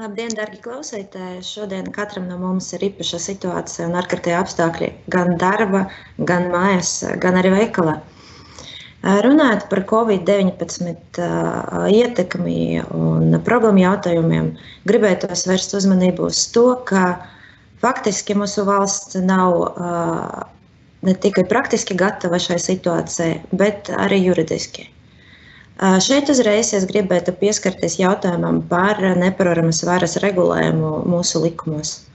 Labdien, dargi klausītāji! Šodien katram no mums ir īpaša situācija un ārkārtēji apstākļi gan darba, gan mājās, gan arī veikalā. Runājot par Covid-19 ietekmi un problēmu jautājumiem, gribētos vērst uzmanību uz to, ka faktiski mūsu valsts nav ne tikai praktiski gatava šai situācijai, bet arī juridiski. Šeit uzreiz es gribētu pieskarties jautājumam par neparoramas varas regulējumu mūsu likumos.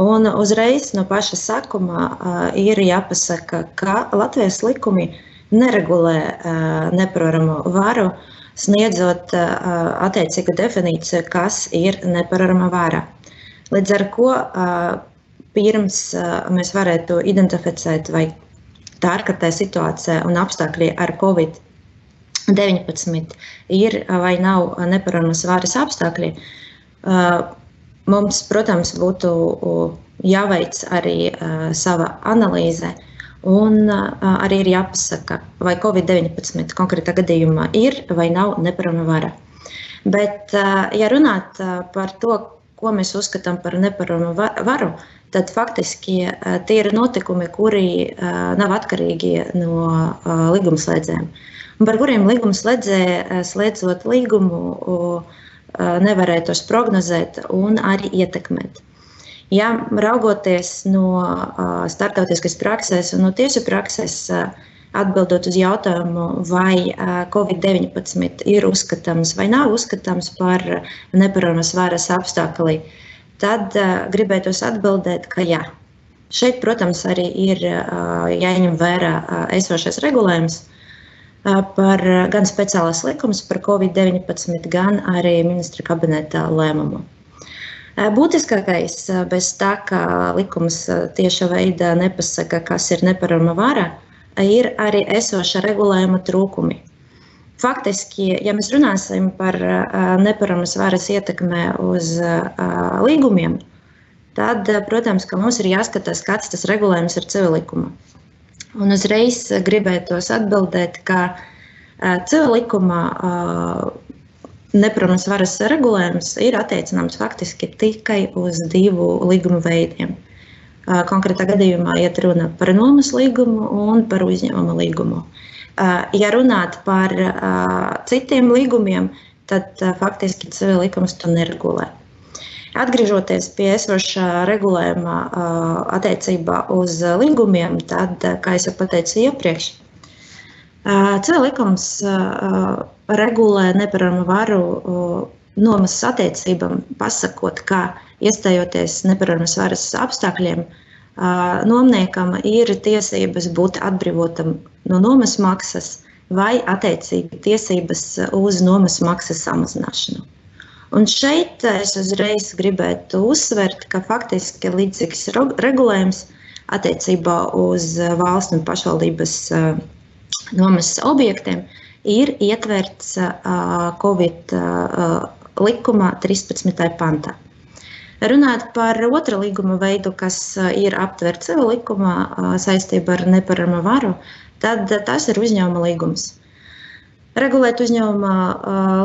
Un uzreiz no paša sākuma ir jāpasaka, ka Latvijas likumi neregulē neparoramo varu, sniedzot attiecīgu definīciju, kas ir neparorama vara. Līdz ar ko pirms mēs varētu identificēt, vai tā ārkārtēja situācija un apstākļi ar Covid-19 ir vai nav neparoramas varas apstākļi, mums, protams, būtu jāveic arī sava analīze un arī ir jāpasaka, vai Covid-19 konkrētā gadījumā ir vai nav neparorama vara. Bet, ja runāt par to, ko mēs uzskatām par nepararoramu varu, tad faktiski tie ir notikumi, kuri nav atkarīgi no līgumslēdzējiem, un par kuriem līgumslēdzēji, slēdzot līgumu, nevarēja tos prognozēt un arī ietekmēt. Ja raugoties no starptautiskas prakses un no tiesu prakses, atbildot uz jautājumu, vai Covid-19 ir uzskatāms vai nav uzskatāms par neparoramas varas apstākli, tad gribētos atbildēt, ka jā. Šeit, protams, arī ir jāņem vērā esošais regulējums par gan speciālās likums par Covid-19, gan arī ministra kabineta lēmumu. Būtiskākais, bez tā, ka likums tieša veidā nepasaka, kas ir neparorama vara, ir arī esoša regulējuma trūkumi. Faktiski, ja mēs runāsim par neparoramas varas ietekmē uz līgumiem, tad, protams, ka mums ir jāskatās, kāds tas regulējums ir civillikuma. Un uzreiz gribētos atbildēt, ka civillikumā neparoramas varas regulējums ir attiecināms faktiski tikai uz divu līgumu veidiem. Konkrētā gadījumā iet runa par nomas līgumu un par uzņēmuma līgumu. Ja runāt par citiem līgumiem, tad faktiski civillikums to neregulē. Atgriežoties pie esošā regulējuma attiecībā uz līgumiem, tad, kā es jau pateicu iepriekš, civillikums regulē nepararoramu varu nomas attiecībām, pasakot, ka iestājoties neparoramas varas apstākļiem, nomniekam ir tiesības būt atbrīvotam no nomas maksas vai attiecīgi tiesības uz nomas maksas samazināšanu. Un šeit es uzreiz gribētu uzsvert, ka faktiski līdzīgs regulējums attiecībā uz valsts un pašvaldības nomas objektiem ir ietverts Covid likuma 13. pantā. Runāt par otru līguma veidu, kas ir aptverts civillikumā saistībā ar neparoramo varu, tad tas ir uzņēmuma līgums. Regulēt uzņēmuma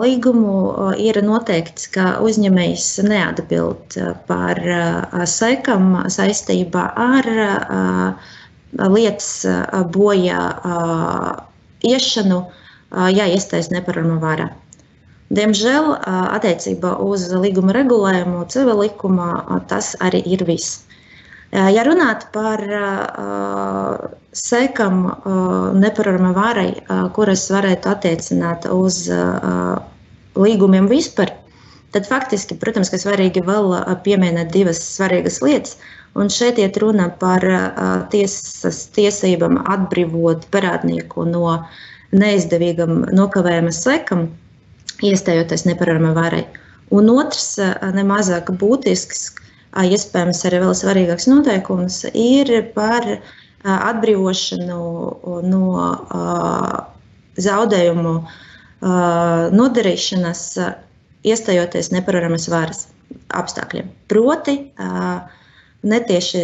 līgumu ir noteikts, ka uzņēmējs neatbild par sekām saistībā ar lietas bojā iešanu, ja iestājas neparorama vara. Diemžēl attiecībā uz līguma regulējumu civillikumā tas arī ir viss. Ja runāt par sekām neparorama varai, kuras varētu attiecināt uz līgumiem vispār, tad faktiski, protams, ka svarīgi vēl pieminēt divas svarīgas lietas. Un šeit iet runa par tiesas tiesībām atbrīvot parādnieku no neizdevīgam nokavējuma sekām, iestājoties neparorama varai. Un otrs, nemazāk būtisks, iespējams arī vēl svarīgāks noteikums, ir par atbrīvošanu no zaudējumu nodarīšanas, iestājoties neparoramas varas apstākļiem. Proti, netieši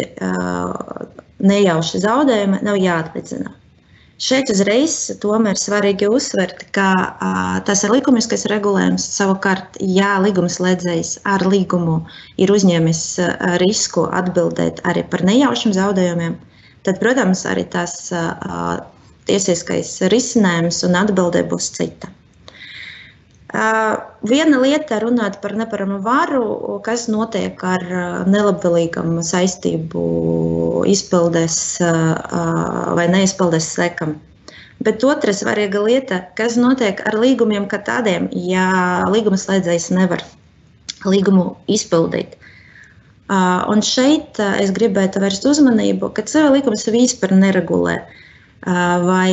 nejauši zaudējumi nav jāatlīdzina. Šeit uzreiz tomēr svarīgi uzsvert, ka tas ir likumiskais regulējums. Savukārt, ja līgumslēdzējs ar līgumu ir uzņēmis risku atbildēt arī par nejaušiem zaudējumiem, tad, protams, arī tas tiesiskais risinājums un atbildē būs cita. Viena lieta runāt par neparamu varu, kas notiek ar nelabvēlīgam saistību izpildes vai neizpildes sekam. Bet otra svarīga lieta, kas notiek ar līgumiem kā tādiem, ja līgumslēdzējs nevar līgumu izpildīt. Un šeit es gribētu vērst uzmanību, ka CV likums vispār neregulē vai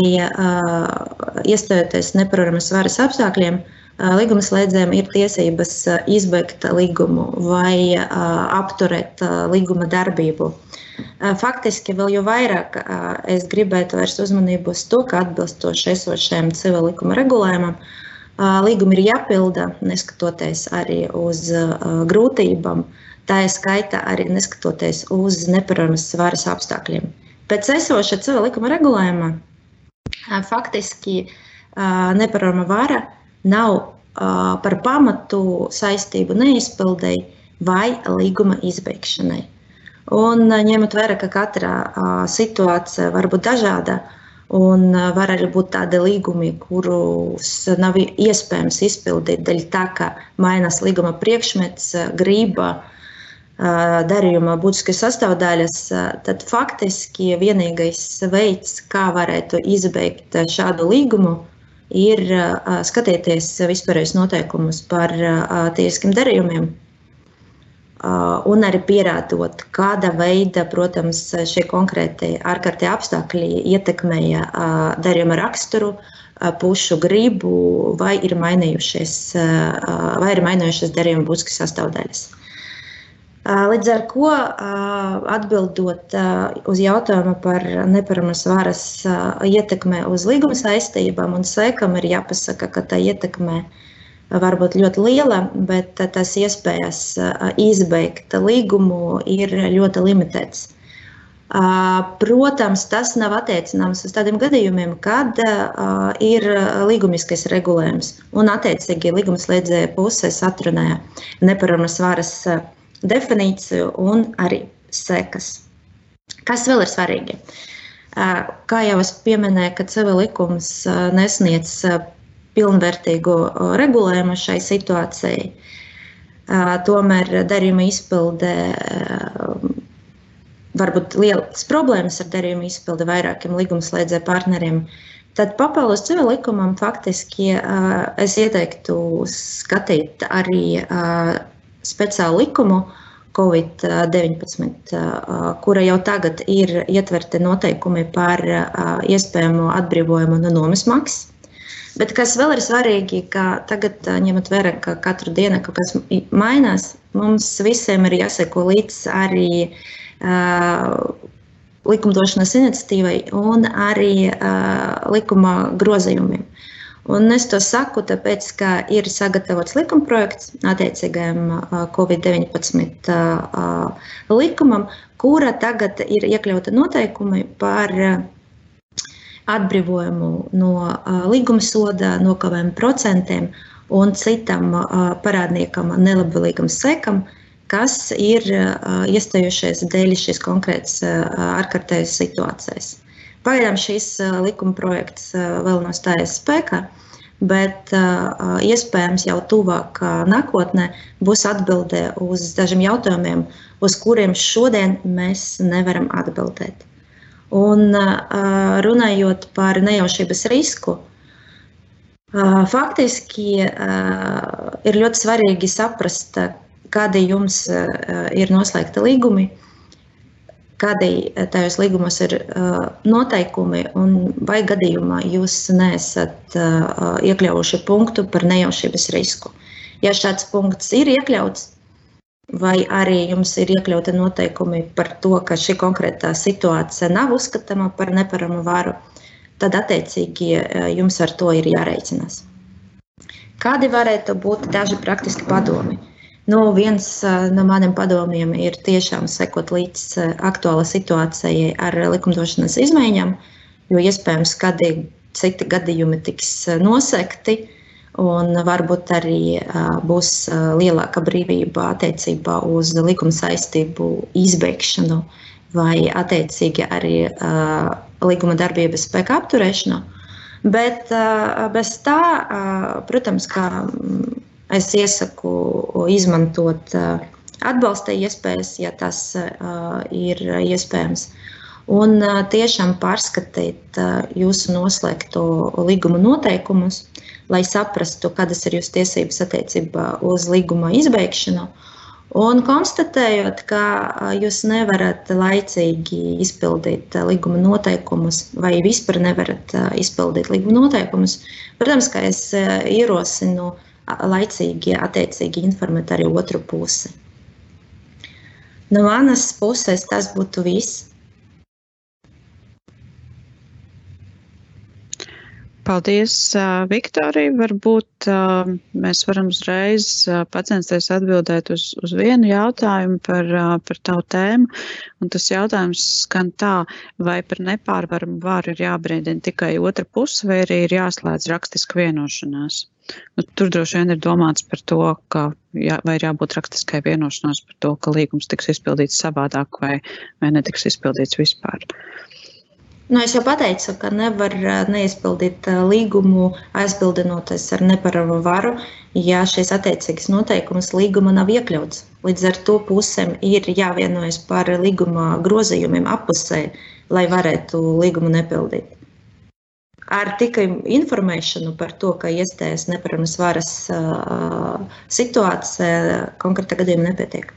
iestājoties neparamas varas apstākļiem, līgumslēdzējiem ir tiesības izbeigt līgumu vai apturēt līguma darbību. Faktiski vēl jau vairāk es gribētu vērst uzmanību uz to, ka atbilstoši esošajam civil likuma regulējumam līgumi ir jāpilda, neskatoties arī uz grūtībām, tā ir skaita arī neskatoties uz neparamas varas apstākļiem. Pēc esoša civil likuma regulējuma faktiski neparama vara nav par pamatu saistību neizpildēji vai līguma izbeigšanai. Un ņemot vērā, ka katra situācija var būt dažāda un var arī būt tādi līgumi, kurus nav iespējams izpildīt dēļ tā, ka mainās līguma priekšmets, grība, darījuma būtiskas sastāvdaļas, tad faktiski vienīgais veids, kā varētu izbeigt šādu līgumu, ir skatīties vispārējos noteikumus par tiesiskiem darījumiem un arī pierādot, kāda veida, protams, šie konkrēti ārkārtie apstākļi ietekmēja darījuma raksturu, pušu gribu vai ir mainījušies darījuma būtiskas sastāvdaļas. Līdz ar ko, atbildot uz jautājumu par neparamas varas ietekmē uz līguma saistībām un sekam, ir jāpasaka, ka tā ietekmē var būt ļoti liela, bet tas iespējas izbeigt līgumu ir ļoti limitēts. Protams, tas nav attiecināms uz tādiem gadījumiem, kad ir līgumiskais regulējums un attiecīgi līgumslēdzēja puses atrunāja neparamas varas definīciju un arī sekas. Kas vēl ir svarīgi? Kā jau es pieminēju, ka CV likums nesniedz pilnvērtīgu regulējumu šai situācijai, tomēr darījuma izpilde varbūt lielas problēmas ar darījuma izpildi vairākiem līgumslēdzēju partneriem, tad papildus CV likumam faktiski es ieteiktu skatīt arī speciālu likumu COVID-19, kura jau tagad ir ietverti noteikumi par iespējamo atbrīvojumu no nomas maksas. Bet kas vēl ir svarīgi, ka tagad, ņemot vērā, ka katru dienu kaut kas mainās, mums visiem ir jāseko līdz arī likumdošanas iniciatīvai un arī likuma grozījumiem. Un es to saku, tāpēc, ka ir sagatavots likumprojekts attiecīgajam COVID-19 likumam, kura tagad ir iekļauta noteikumi par atbrīvojumu no līguma soda, nokavējumu procentiem un citam parādniekam nelabvēlīgam sekam, kas ir iestājušies dēļ šīs konkrētas ārkārtējas situācijas. Pagaidām šis likuma projekts vēl nav stājies spēkā, bet iespējams jau tuvāk nākotnē būs atbildē uz dažiem jautājumiem, uz kuriem šodien mēs nevaram atbildēt. Un runājot par nejaušības risku, faktiski ir ļoti svarīgi saprast, kādi jums ir noslēgti līgumi, kādi tajos līgumos ir noteikumi un vai gadījumā jūs neesat iekļaujuši punktu par nejaušības risku. Ja šāds punkts ir iekļauts, vai arī jums ir iekļauti noteikumi par to, ka šī konkrētā situācija nav uzskatāma par neparamu varu, tad attiecīgi jums ar to ir jārēķinās. Kādi varētu būt daži praktiski padomi? Viens no maniem padomiem ir tiešām sekot līdz aktuāla situācijai ar likumdošanas izmaiņām, jo iespējams, ka citi gadījumi tiks nosekti, un varbūt arī būs lielāka brīvība attiecībā uz likuma saistību izbeigšanu vai attiecīgi arī līguma darbības spēka apturēšanu. Bet bez tā, protams, ka es iesaku izmantot atbalsta iespējas, ja tas ir iespējams. Un tiešām pārskatīt jūsu noslēgto līguma noteikumus, lai saprastu, kādas ir jūsu tiesības attiecībā uz līguma izbeigšanu. Un konstatējot, ka jūs nevarat laicīgi izpildīt līguma noteikumus vai vispār nevarat izpildīt līguma noteikumus, protams, ka es ierosinu laicīgi attiecīgi informēt arī otru pusi. No manas puses tas būtu viss. Paldies, Viktorija. Varbūt mēs varam uzreiz pacensties atbildēt uz vienu jautājumu par tavu tēmu. Un tas jautājums skan tā, vai par nepārvaramu varu ir jābrīdina tikai otra puse, vai arī ir jāslēdz rakstiska vienošanās. Nu, tur droši vien ir domāts par to, ka vai ir jābūt rakstiskai vienošanās par to, ka līgums tiks izpildīts savādāk vai netiks izpildīts vispār. Es jau pateicu, ka nevar neizpildīt līgumu, aizbildinoties ar neparamu varu, ja šīs attiecīgas noteikumas līguma nav iekļauts. Līdz ar to pusēm ir jāvienojas par līguma grozījumiem appusē, lai varētu līgumu nepildīt. Ar tikai informēšanu par to, ka iestājas neparamas varas situācija konkrētā gadījumā nepietiek.